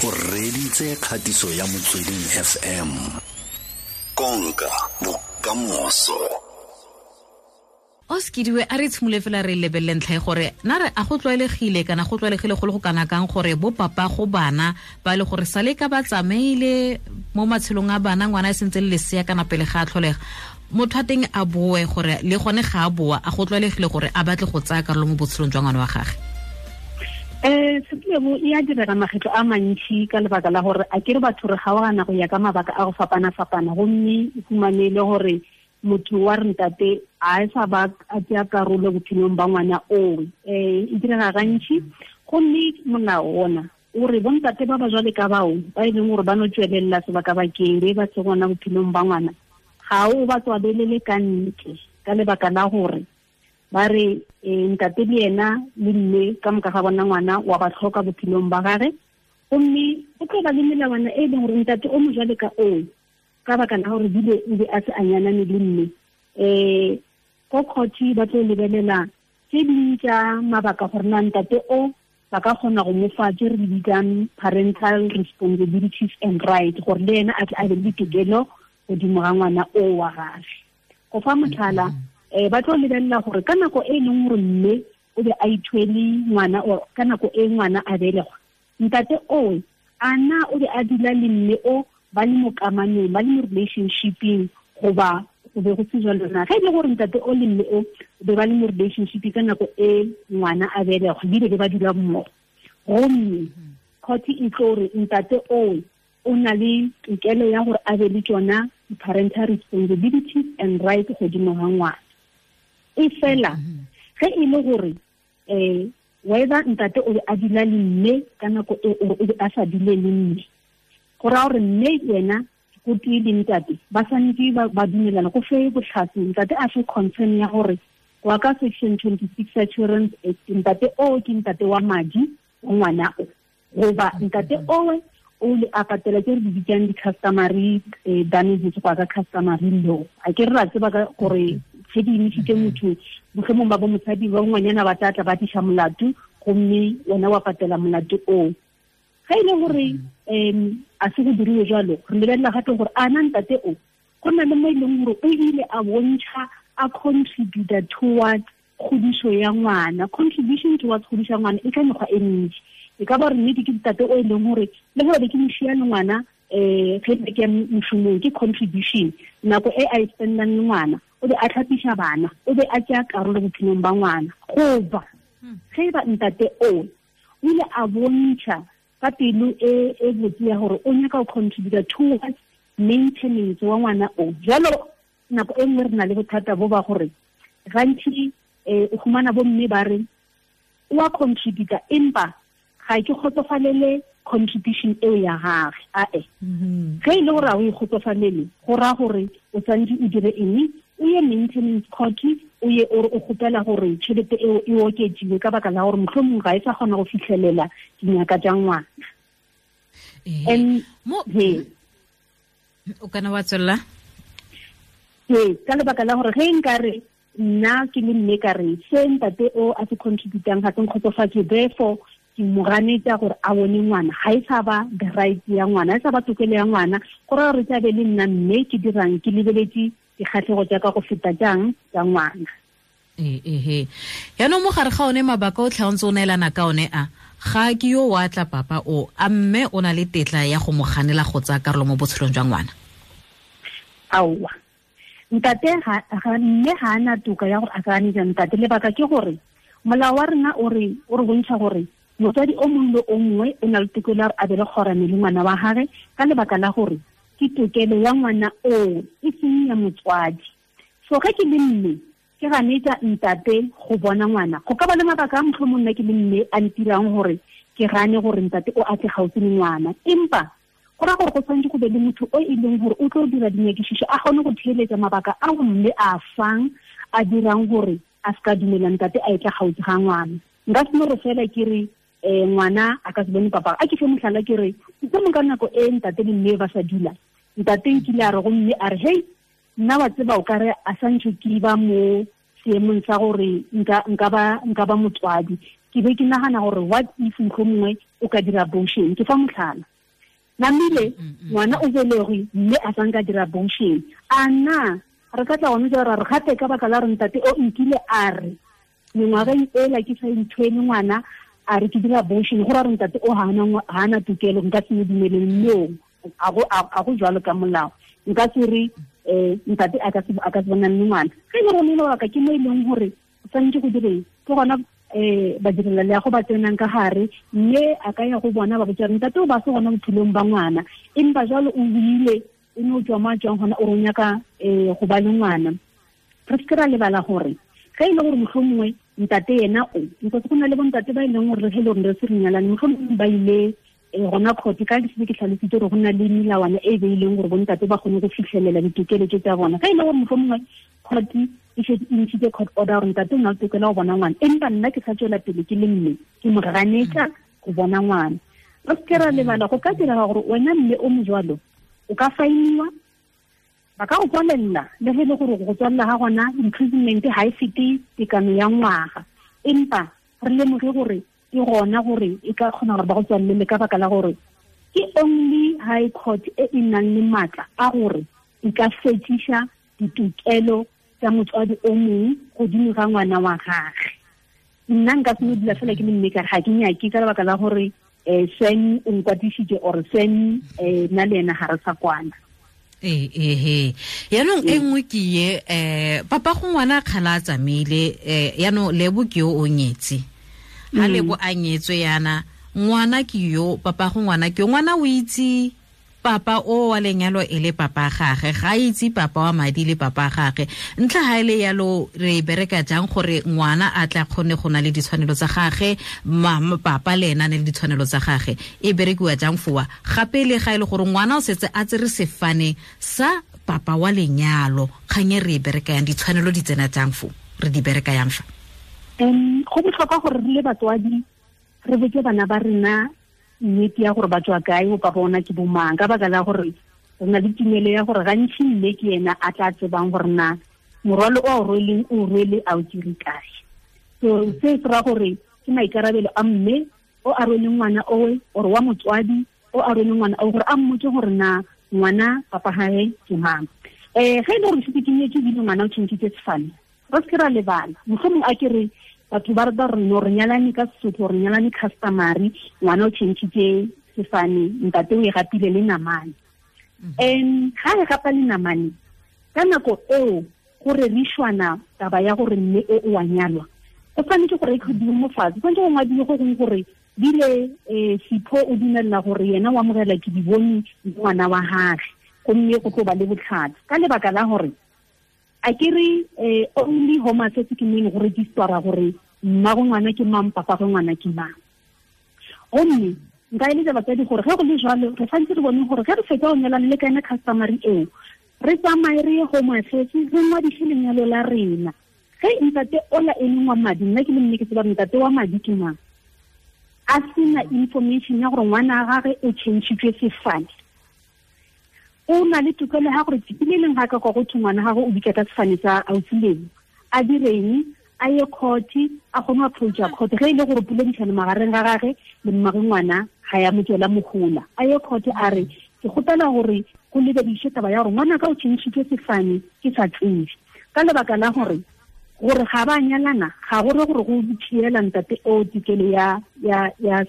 O reditse kgatiso ya Motsweding FM. Konka bokamoso. O sekidiwe a re tshimole fela re lebelele ntlha e gore na re a go tlwaelegile kana go tlwaelegile go le go kana kang gore bo papa go bana ba le gore sale ka ba tsamaile mo matshelong a bana ngwana e sentse le lesea kana pele ga a tlholega motho a teng a boe gore le gone ga a boa a go tlwaelegile gore a batle go tsaya karolo mo botshelong jwa ngwana wa gage. Setlebo e a direga makgetlo a mantši ka lebaka la gore a kere batho re gaogana go ya ka mabaka a go fapana-fapana, gomme o fumane le gore motho wa re ntate a e sa ba a tsaya karolo bophelong ba ngwana oo. E direga gantši, gomme molao ona o re bontate ba ba jwale ka bao ba e leng gore ba no tswelelela sebaka-bakeng be ba se gona bophelong ba ngwana, ga o ba tswalelele ka ntle ka lebaka la gore ba re ntate le yena le mme ka moka ga bona ngwana wa ba tlhoka bophelong ba gage, gomme go tlo ba le melawana e leng gore ntate o mo jwale ka oo ka baka la gore bile o be a se a nyanane le mme, ko court ba tlo lebelela tse ding tša mabaka gore na ntate o ba ka kgona go mo fa tse re di bitsang parental responsibilities and right, gore le yena a tle a be le ditokelo godimo ga ngwana o wa gage. Go fa motlhala, ba tlo lebelela gore ka nako e leng gore mme o be a ithwele ngwana or ka nako e ngwana a belegwa, ntate oo a na o be a dula le mme o ba le mo kamanong, ba le mo relationshipeng, goba go be go se jalo na. Ge e le gore ntate o le mme o be ba le mo relationship ka nako e ngwana a belegwa, ebile be ba dula mmogo, gomme court e tlo re ntate oo o na le tokelo ya gore a be le tsona parental responsibilities and right godimo ga ngwana. E fela ge e le gore whether ntate o be a dula le mme ka nako e or o be a sa dule le mme, go raya gore mme yena go tee le ntate ba swanetše ba dumelana go fe bohlatse, ntate a fe concern ya gore go ya ka section 26 ya Children's Act ntate o ke ntate wa madi wa ngwana o, goba ntate owe o le a patela tse re di bitsang di-customary damages go ya ka customary law. A ke re ra tseba ka gore ge di emisitse motho mohlomong ba bo mosadi ba ngwanyana ba tla tla ba tliša molato, gomme wena wa patela molato oo. Ge e le gore a se go diriwe jalo, re lebelela gape gore a na ntate o go na le mo e leng gore o ile a bontšha a contributa towards kgodišo ya ngwana. Contribution towards kgodišo ya ngwana e ka mekgwa e mentši. E ka ba gore nnete ke ntate o e leng gore le gore ke mošia le ngwana ge ke ya mošomong, ke contribution nako e a e spendang le ngwana, o be a tlhapiša bana, o be a tšea karolo bophelong ba ngwana. Goba ge e ba ntate o ile a bontšha ka pelo e botse ya gore o nyaka go contributa towards maintenance wa ngwana o. Jalo nako e nngwe re na le bothata bo ba gore gantši o fumana bo mme ba re o a contributa empa ga ke kgotsofalele contribution eo ya gage. Ae ge e le gore ga o e kgotsofalele, go raya gore o tshwanetse o dire eng, o ye maintenance court, o ye o kgopela gore tšhelete eo e oketsiwe ka baka la gore mohlomong ga e sa kgona go fitlhelela dinyaka tša ngwana. O kana wa tswelela? Ee, ka lebaka la gore ge nka re nna ke le mme ka re se ntate o a se contributang ga se nkgotsofatse, therefore ke mo ganetša gore a bone ngwana, ga e sa ba the right ya ngwana, ga e sa ba tokelo ya ngwana, go raya gore tla be le nna mme ke dirang, ke lebeletse dikgatlhego tša ka go feta jang tša ngwana. Ehe, yaanong mo gare ga one mabaka o tlha o ntse o neelana ka one a ga ke yo wa tla papa o a mme o na le tetla ya go mo ganela go tsaya karolo mo botshelong jwa ngwana? Aowa, ntate ga mme ga ana toka ya gore a ka ganetsa ntate. Lebaka ke gore molao wa rena o re bontšha gore motswadi o mongwe le o mongwe o na le tokelo ya gore a be le kgorane le ngwana wa gage, ka lebaka la gore ke tokelo ya ngwana oo e seng ya motswadi. So ge ke le mme ke ganetsa ntate go bona ngwana, go ka ba le mabaka a mohlomong nna ke le mme a ntirang gore ke gane gore ntate o a tle gaufi le ngwana, empa go raya gore go tshwanetse go be le motho o e leng gore o tlo dira dinyakišišo, a kgone go theeletsa mabaka a mme a fang a dirang gore a se ka dumela ntate a etla gaufi ga ngwana. Nka se no re fela ke re ngwana a ka se bone papa. A ke fe mohlala ke re mohlomong ka nako e ntate le mme ba sa dula, ntate nkile a re go mme a re hei nna wa tseba o kare a santse ke ba mo seemong sa gore nka ba motswadi, Ke be ke nagana gore what if mohlomongwe o ka dira abortion. Ke fa motlhala namile ngwana o belegwe mme a sa nka dira abortion. A na re ka tla gone jalo ra re gape ka baka la re ntate o nkile a re mengwageng ela ke sa ntshwene ngwana a re ke dira abortion, go ra re ntate o ga ana tokelo, nka se mo dumeleng. No, a go jalo ka molao. Nka se re ntate a ka se bonang le ngwana. Ge e le gore lebaka ke mo e leng gore o tshwanetse go direng, ke gona badirela leago ba tsenang ka gare, mme a ka ya go bona ba botsa ntate o ba se gona bophelong ba ngwana, empa jalo o buile o ne o tswa mo a tswang gona o re o nyaka go ba le ngwana. Re seke ra lebala gore ge e le gore mohlomongwe ntate yena o, because go na le bontate ba e leng gore ge e le gore re se re nyalane, mohlomongwe ba ile gona court ka ke se ke tlhalositse gore go na le melawana e beileng gore bontate ba kgone go fitlhelela ditokelo tse tsa bona. Ge e le gore mohlomongwe court e šetse e ntšhitse court order gore ntate o na le tokelo ya go bona ngwana, empa nna ke sa tswela pele ke le mme ke mo ganetsa go bona ngwana. Re seke ra lebala go ka direga gore wena mme o mo jwalo o ka fainiwa, ba ka go tswalela, le ge e le gore go tswalela ga gona imprisonment ga e fete tekano ya ngwaga, empa re lemoge gore ke gona gore e ka kgona gore ba go tswalele ka baka la gore ke only high court e e nang le maatla a gore e ka fetiša ditokelo tsa motswadi o mongwe godimo ga ngwana wa gagwe. Nna nka se no dula fela ke le mme ka re ga ke nyake ka lebaka la gore Sven o nkwatisitse or Sven nna le ena ga re sa kwana. Ee, yaanong e nngwe ke ye papa go ngwana kgala a tsamaile, yaanong Lebo ke yo o nyetse. Ha Lebo a nyetswe yana, ngwana ke yo, papa go ngwana ke yo, ngwana o itse papa o wa lenyalo e le papa gagwe, ga itse papa wa madi le papa gagwe. Ntlha ha ile yalo re bereka jang gore ngwana a tla kgone go na le ditshwanelo tsa gagwe, mama papa le ena ne le ditshwanelo tsa gagwe, e berekiwa jang fowa? Gape le ga ile gore ngwana o setse a tsere sefane sa papa wa lenyalo, kgang e re e bereka yang, ditshwanelo di tsena jang fo, re di bereka yang fa? Go botlhokwa gore re le batswadi re botse bana ba rena nnete ya gore ba tswa kae, bo papa ona ke bomang, ka baka la gore re na le tumelo ya gore gantsi mme ke ena a tla tsebang gore na morwalo o rweleng o rwele a o dire kae. So se se ra gore ke maikarabelo a mme o a rweleng ngwana owe, or wa motswadi o a rweleng ngwana o, gore a mmotse gore na ngwana papa hae ke mang. Ge e le gore setse ke nyetse ebile ngwana o tšhentšhitse sefane, re seke ra lebala mohlomong a ke re batho ba re no re nyalane ka Sesotho, re nyalane customary, ngwana o tšhentšhitse sefane, ntate o e gapile le namane. Ga e gapa le namane, ka nako eo go rerišwana taba ya gore mme o o a nyalwa, go tshwanetse gore e kgodiwe mo fatshe, go tshwanetse go ngwadiwe go gongwe gore bile Sipho o dumella gore yena o amogela ke di bone ngwana wa gagwe, gomme go tlo ba le botlhatsi. Ka lebaka la gore a ke re only home affairs ke mo e leng go registera gore mmago ngwana ke mang, papa go ngwana ke mang. Gomme nka eletsa batsadi gore ge go le jwalo re tshwanetse re bone gore ge re fetsa go nyalana le ka ena customary eo, re tsamaye re ye home affairs re ngwadise lenyalo la rena. Ge ntate ola e leng wa madi, nna ke le mme ke tseba ntate wa madi ke mang, a sena information ya gore ngwana wa gagwe o tšhentšhitšwe sefane, o na le tokelo ya gore tsatsi le leng ga ka kwa go thwe ngwana gagwe o bitsa ka sefane sa ausi Lebo, a direng, a ye court, a kgone go approacha court. Ge e le gore poledišano magareng ga gagwe le mmagwe ngwana ga ya mo tswela mohola, a ye court a re ke kgopela gore go lebediše taba ya gore ngwana ka o tšhentšhitšwe sefane ke sa tsebe, ka lebaka la gore ga ba nyalana ga gore gore go tšhiela ntate o tokelo ya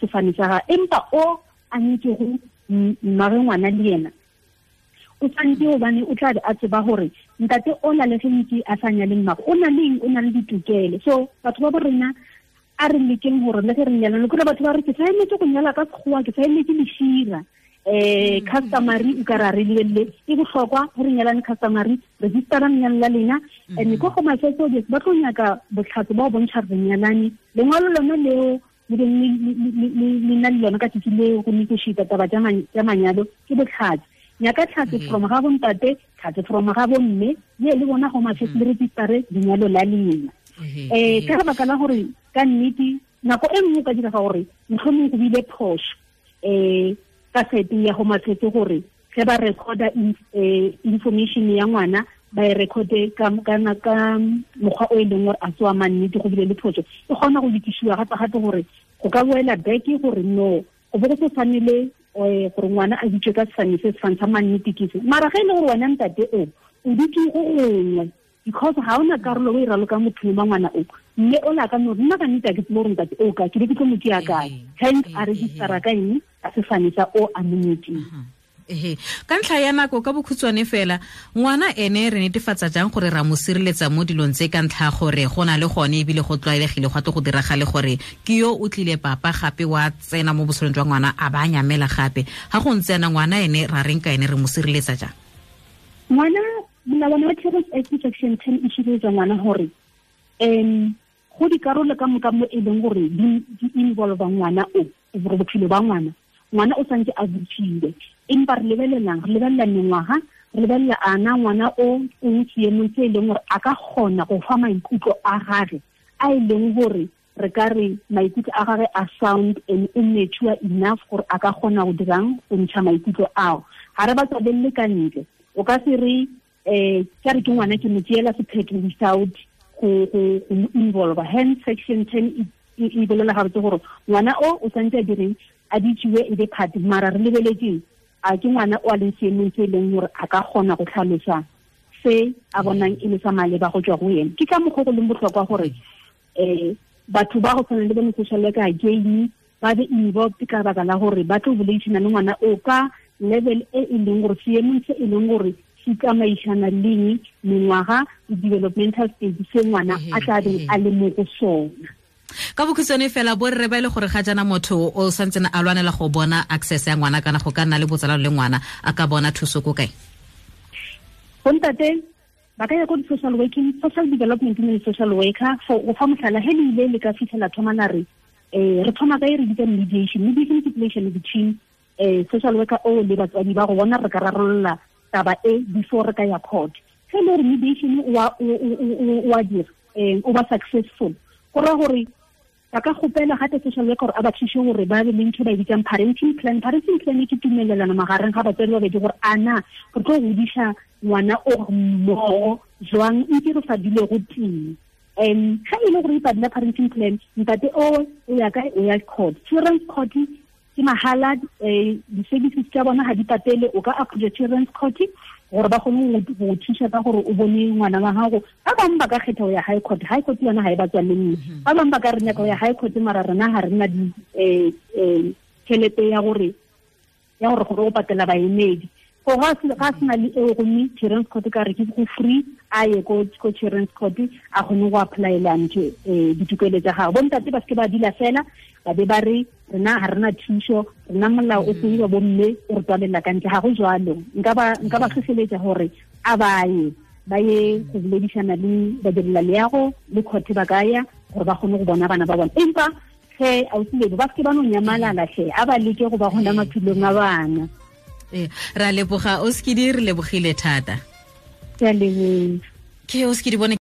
sefane sa gagwe, empa o a nyetšego mmagwe ngwana le yena o tshwanetse gobane o tla be a tseba gore ntate o na le ge ntse a sa nyale mmagwe, o na le eng, o na le ditokelo. So batho ba bo rena a re lekeng gore le ge re nyalana, kore batho ba re ke sa emetse go nyala ka sekgowa, ke sa emetse lešira, customary o ka ra re lebelele e bohlokwa ge re nyalane customary, registera lenyalo la lena. And ko go Affairs ba tlo nyaka botlhatsi ba go bontšha re nyalane, lengwalo lona leo le beng le na le lona ka tsatsi leo go negotiate taba tša manyalo ke botlhatsi. Nyaka tlhatse from ga bontate, tlhatse from ga bomme, ye le bona Home Affairs le registere lenyalo la lena. Ka lebaka la gore ka nnete nako e nngwe ka direga gore mohlomong go bile phoso ka sete ya Home Affairs gore ge ba recorda information ya ngwana ba e recorde ka mokgwa o e leng gore a se wa mannete go bile le phoso, e kgona go lokišiwa gape-gape gore go ka boela back gore no go bo go se tshwanele gore ngwana a bitswe ka sefane se sefane sa mannete ke se. Mara ge e le gore wena ntate o dutse go gongwe because ga ona karolo o e raloka mothong wa ngwana o, mme o la ka no nna ka nnete a ke tsebe gore ntate o ka ke be ke tlo mo tšea kae, hence a registera ka eng ka sefane sa o a monyetseng. Ka ntlha ya nako ka bokhutshwane fela, ngwana ene re netefatsa jang gore ra mo sireletsa mo dilong tse ka ntlha gore go na le gone ebile go tlwaelegile go tlo go diragale gore ke yo o tlile papa gape wa tsena mo botshelong jwa ngwana a ba nyamela gape, ga go ntse yana ngwana ene ra reng ka ene re mo sireletsa jang? Ngwana molawana wa Children's Act section 10 e sireletsa ngwana gore go dikarolo ka moka mo e leng gore di involve ngwana o gore bophelo ba ngwana, ngwana o santse a botsile, empa re lebelelang, re lebelela mengwaga, re lebelela ana ngwana o o seemong se e leng gore a ka kgona go fa maikutlo a gage a e leng gore re ka re maikutlo a gage a sound and o mature enough gore a ka kgona go dirang go ntsha maikutlo ao. Ga re ba tswalelle ka ntle, o ka se re ka re ke ngwana ke mo tseela sephetho without go involve. Hence section 10 e bolela gabotse gore ngwana o santse a direng a ditsiwe e be part, mara re lebeletseng a ke ngwana o a leng seemong se e leng gore a ka kgona go tlhalosa se a bonang e le sa maleba go tswa go ene. Ke ka mokgwa go leng botlhokwa gore batho ba go tshwana le bo social worker again ba be involved ka baka la gore ba tlo boledisana le ngwana o ka level e e leng gore seemong se e leng gore se tsamaisana leng mengwaga le developmental stage se ngwana a tla beng a le mo go sona. Ka bokhutshwane fela, borre ba ile gore ga jana motho o santsene a lwanela go bona access ya ngwana kana go ka nna le botsalano le ngwana a ka bona thuso ko kae? Bontate ba ka ya ko social working, social development le social worker for go fa mohlala he le ile le ka fitlhela thoma la re re thoma ka e re bitsa mediation. Mediation ke relation between social worker o le batswadi ba go bona re ka rarolola taba e before re ka ya court. Ge le gore mediation wa dira o ba successful, go raya gore ba ka kgopela gape social worker gore a ba thuse gore ba be le ntho ba e bitsang parenting plan. Parenting plan ke tumelelano magareng ga batswadi ba babedi gore ana re tlo godisa ngwana o mmogo jwang ntse re sa dule go tee. Ga e le gore e padila parenting plan, ntate o ya kae? O ya court. Children's court ke mahala, di-services tsa bona ga di patele, o ka approach children's court gore ba kgone go thusa ka gore o bone ngwana wa gago. Ba bangwe ba ka kgetha go ya high court, high court yona ga e ba tswalelle nne. Ba bangwe ba ka re nyaka go ya high court mara rena ga re na tšhelete ya gore gore o patela baemedi. Go ga sena le eo gomme children's court ka re ke go free, a ye ko children's court a kgone go applyela ntho ditokelo tsa gagwe. Bontate ba seke ba dula fela ba be ba re rena ga rena thuso, rena molao o seiwa bomme o re tswalela ka ntle, ga go jwalo. Nka ba tlhotlheletsa gore a ba ye go boledisana le badirela leago le court ba ka ya gore ba kgone go bona bana ba bona. Empa ge ausi ba seke ba no nyamalala tlhe, a ba leke go ba gona maphelong a bana. Ra leboga Oskidi, re lebogile thata. Ke a leboga. Ke Oskidi bone.